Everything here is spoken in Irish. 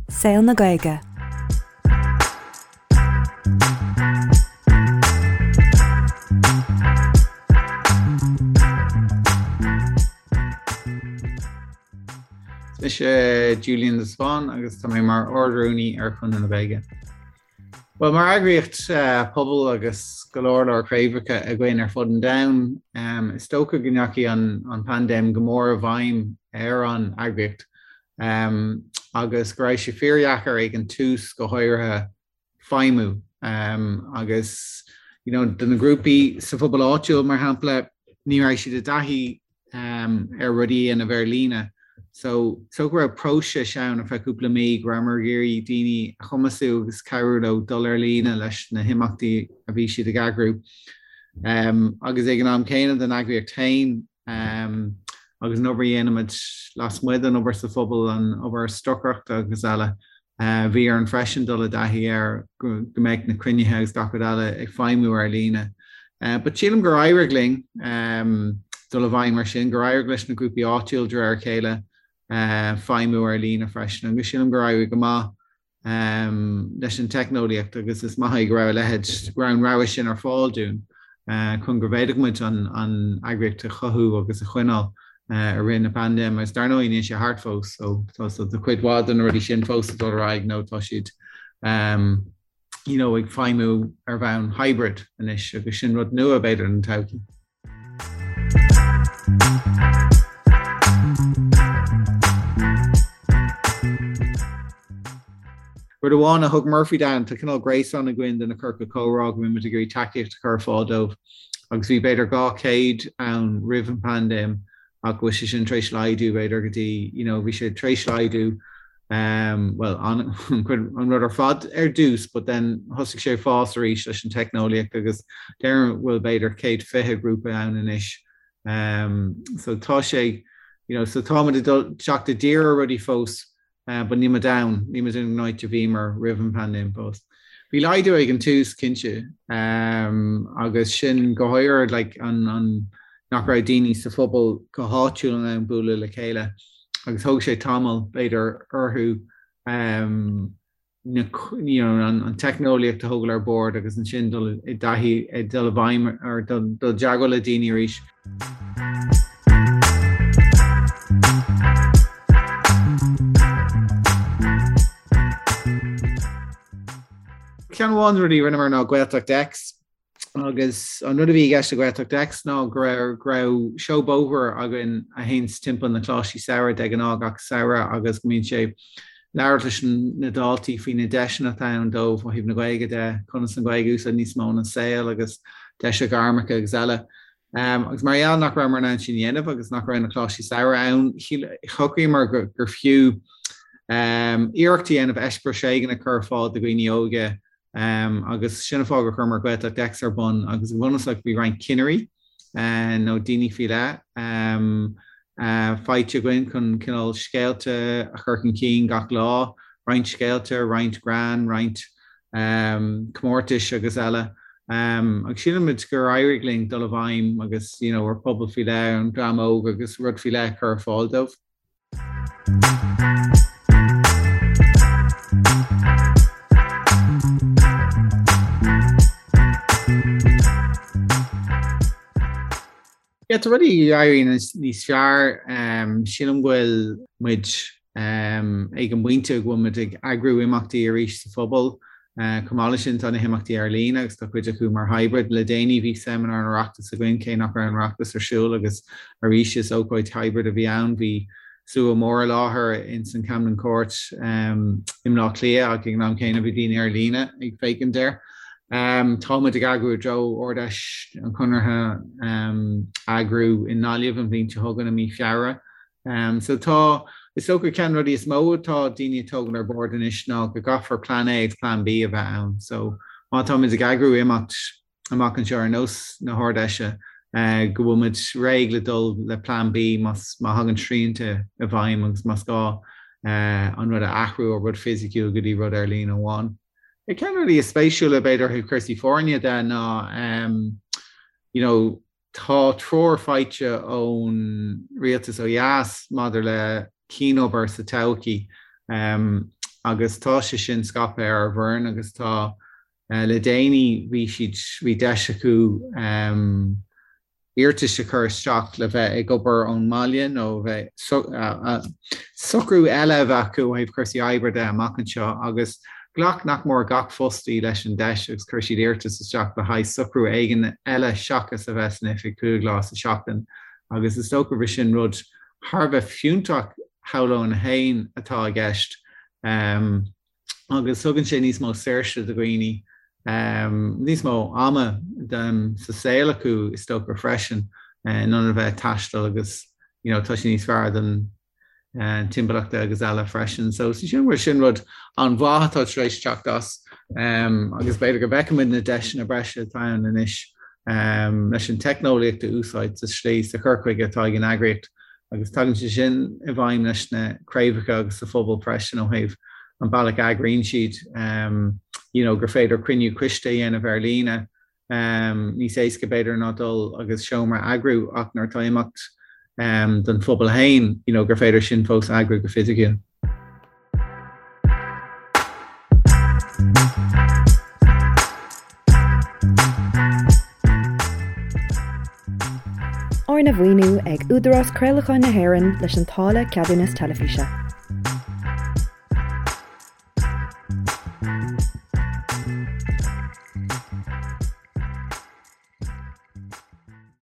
Saol na Gaeilge. Is mise Julian de Spáinn agus tá mé mar Ard-Rúnaí ar Chonradh na Gaeilge. Bhuel, mar eagraíocht pobail agus go leor leor craobhacha againn ar fud an domhain, is dócha go ndeachaigh an paindéim go mór i bhfeidhm ar an eagraíocht agus go raibh sé fíordheacair ag an tús go háirithe feidhmiú agus you know do na grúpaí sa phobal áitiúil mar shampla ní raibh siad i dtaithí ar rudaí a dhéanamh ar líne. So so go raibh próiseas ann ar feadh cúpla mí go rabhamar ag iarraidh daoine a chumasú agus cabhrú leo dul ar líne leis na himeachtaí a bhí siad ag eagrú. Agus ag an am céanna don eagraíocht féin agus an obair a dhéanaimid lasmuigh den obair sa phobal, an obair stocaireachta agus eile, Bhí orainn freisin dul i dtaithí ar go mbeadh na cruinnithe agus gach rud eile ag feidhmiú ar líne. But sílim gur éirigh linn dul i bhfeidhm mar sin, gur éirigh leis na grúpaí áitiúil de réir a chéile feidhmiú ar líne freisin agus sílim gur éirigh go maith leis an teicneolaíocht agus is maith é go raibh a leithéid, go raibh an rogha sin ar fáil dúinn chun go bhféadfadh muid an eagraíocht a chothú agus a choinneáil. i rith na paindéime agus dar ndóigh níl sé thart fós so tá so tá cuid mhaith de na rudaí sin fós ag dul ar aghaidh nó tá siad um, you know, ag feidhmiú ar bhonn hybrid anois agus sin rud nua b'fhéidir don todhchaí. Rud amháin a thug Murphy dúinn, tá cineál gréasán againn de na ciorcail chomhrá go mbímid ag iarraidh tacaíocht a chur ar fáil dóibh agus bhí b'fhéidir 200 ann roimh an bpaindéim ach go bhfuil sé sin tar éis laghdú b'fhéidir go dtí, you know, bhí sé tar éis laghdú um, well, an, an rud ar fad ar dtús, but then thosaigh sé ag fás arís leis an teicneolaíocht agus déarfainn go bhfuil b'fhéidir 120 grúpa ann anois. Um, so tá sé, you know, so táimid ag dul teacht i dtír ar rudaí fós But níl muid ann, níl muid in an áit a bhíomar roimh an bpaindéim fós. Bhí laghdú ag an tús, cinnte, agus sin go háirithe like an an nach raibh daoine sa phobal go háitiúil in ann bualadh le chéile agus thóg sé tamall b'fhéidir orthu na you know an teicneolaíocht a thógáil ar bord agus ansin dul i dtaithí ag dul i bhfeidhm ar dul i dteagmháil le daoine arís. Ceann amháin de na rudaí a rinneamar ná Gaeltacht X agus an rud a bhí i gceist le Gaeltacht X ná go raibh go raibh seó bóthair againn a théanns timpeall na coláistí samhraidh de ghnáth gach samhradh agus go mbíonn sé labhairt leis na daltaí faoi na deiseanna atá ann dóibh ó thaobh na Gaeilge de, conas an Ghaeilge a úsáid níos mó ina saol agus deiseanna gairmeacha agus eile. Agus mar gheall nach rabhamar in ann sin a dhéanamh agus nach raibh na coláistí samhraidh ann, shocraíomar gur fiú iarracht a dhéanamh eispéireas éigin a chur ar fáil do dhaoine óga agus sin an fáth gur chuireamar Gaeltacht X ar bun agus go bunúsach bhí roinnt cinnirí nó daoine faoi leith faighte againn chun cineál scéalta a chur chun cinn gach lá, roinnt scéalta, roinnt greann, roinnt comórtais agus eile. Agus sílimid gur éirigh linn dul i bhfeidhm agus you know ar phobal faoi leith, an dream óg agus rud faoi leith a chur ar fáil dóibh. Yeah, tá rudaí ag éirí níos fearr. Sílim go bhfuil muid ag an bpointe go bhfuil muid ag eagrú imeachtaí arís sa phobal. Chomh maith leis sin, tá na himeachtaí ar líne agus tá cuid acu mar hybrid. Le déanaí bhí seimineár an Oireachtais againn, cé nach raibh an Oireachtas ar siúl agus arís is ócáid hybrid a bhí ann. Bhí slua mór i láthair ins an Camden Court i mBleá Cliath ach ag an am céanna bhí daoine ar líne ag féachaint air. Tá muid ag eagrú i dtreo Ard-Fheis an Chonartha a eagrú i nGaillimh an bhliain seo chugainn i mí Feabhra. So tá, is dócha ceann de na rudaí is mó atá daoine ag tógáil ar bord anois ná go gcaithfear Plean A agus Plean B a bheith ann. So má táimid ag eagrú imeacht amach anseo ar nós na hArd-Fheise, go bhfuil muid réidh le dul le Plean B más má thagann srianta i bhfeidhm agus más gá an rud a athrú ó rud fisiciúil go dtí rud ar líne amháin. Ceann de na rudaí is spéisiúla b'fhéidir ó thaobh cúrsaí foirne de ná you know tá treoir faighte ón rialtas ó dheas maidir le cianobair sa todhchaí. Agus tá sé sin scaipthe ar ár bhfoireann agus tá le déanaí bhí siad, bhí deis acu iarratais a chur isteach le bheith ag obair ón mbaile nó bheith socrú eile a bheith acu ó thaobh cúrsaí oibre de amach anseo agus ghlac nach mór gach fostaí leis an deis agus chuir siad iarratas isteach le haghaidh socrú éigin eile seachas a bheith san oifig 5 lá sa seachtain agus is dócha gur sin rud thar a bheith fiúntach shamhlóinn féin atá i gceist. Agus tugann sé níos mó saoirse do dhaoine, níos mó ama sa saol acu is dócha freisin, in ionad a bheith ag taisteal agus you know tá sé níos fearr don timpeallacht agus eile freisin. So sin bhfuil sin rud an-mhaith atá tar éis teacht as agus b'fhéidir go bhfeicfimid na deiseanna breise atá ann anois leis an teicneolaíocht a úsáid sa slí sa chur chuige atá ag an eagraíocht agus tagann sé sin i bhfeidhm leis na craobhacha agus sa phobal freisin ó thaobh an bealach a eagraíonn siad you know gur féidir cruinniú coiste a dhéanamh ar líne níos éasca b'fhéidir ná dul agus seomra a eagrú ach nuair atá imeacht don phobal féin you know gur féidir sin fós a eagrú go fisiciúil. Arna mhaoiniú ag Údarás Craolacháin na hÉireann leis an táille Ceadúnas Teilifíse.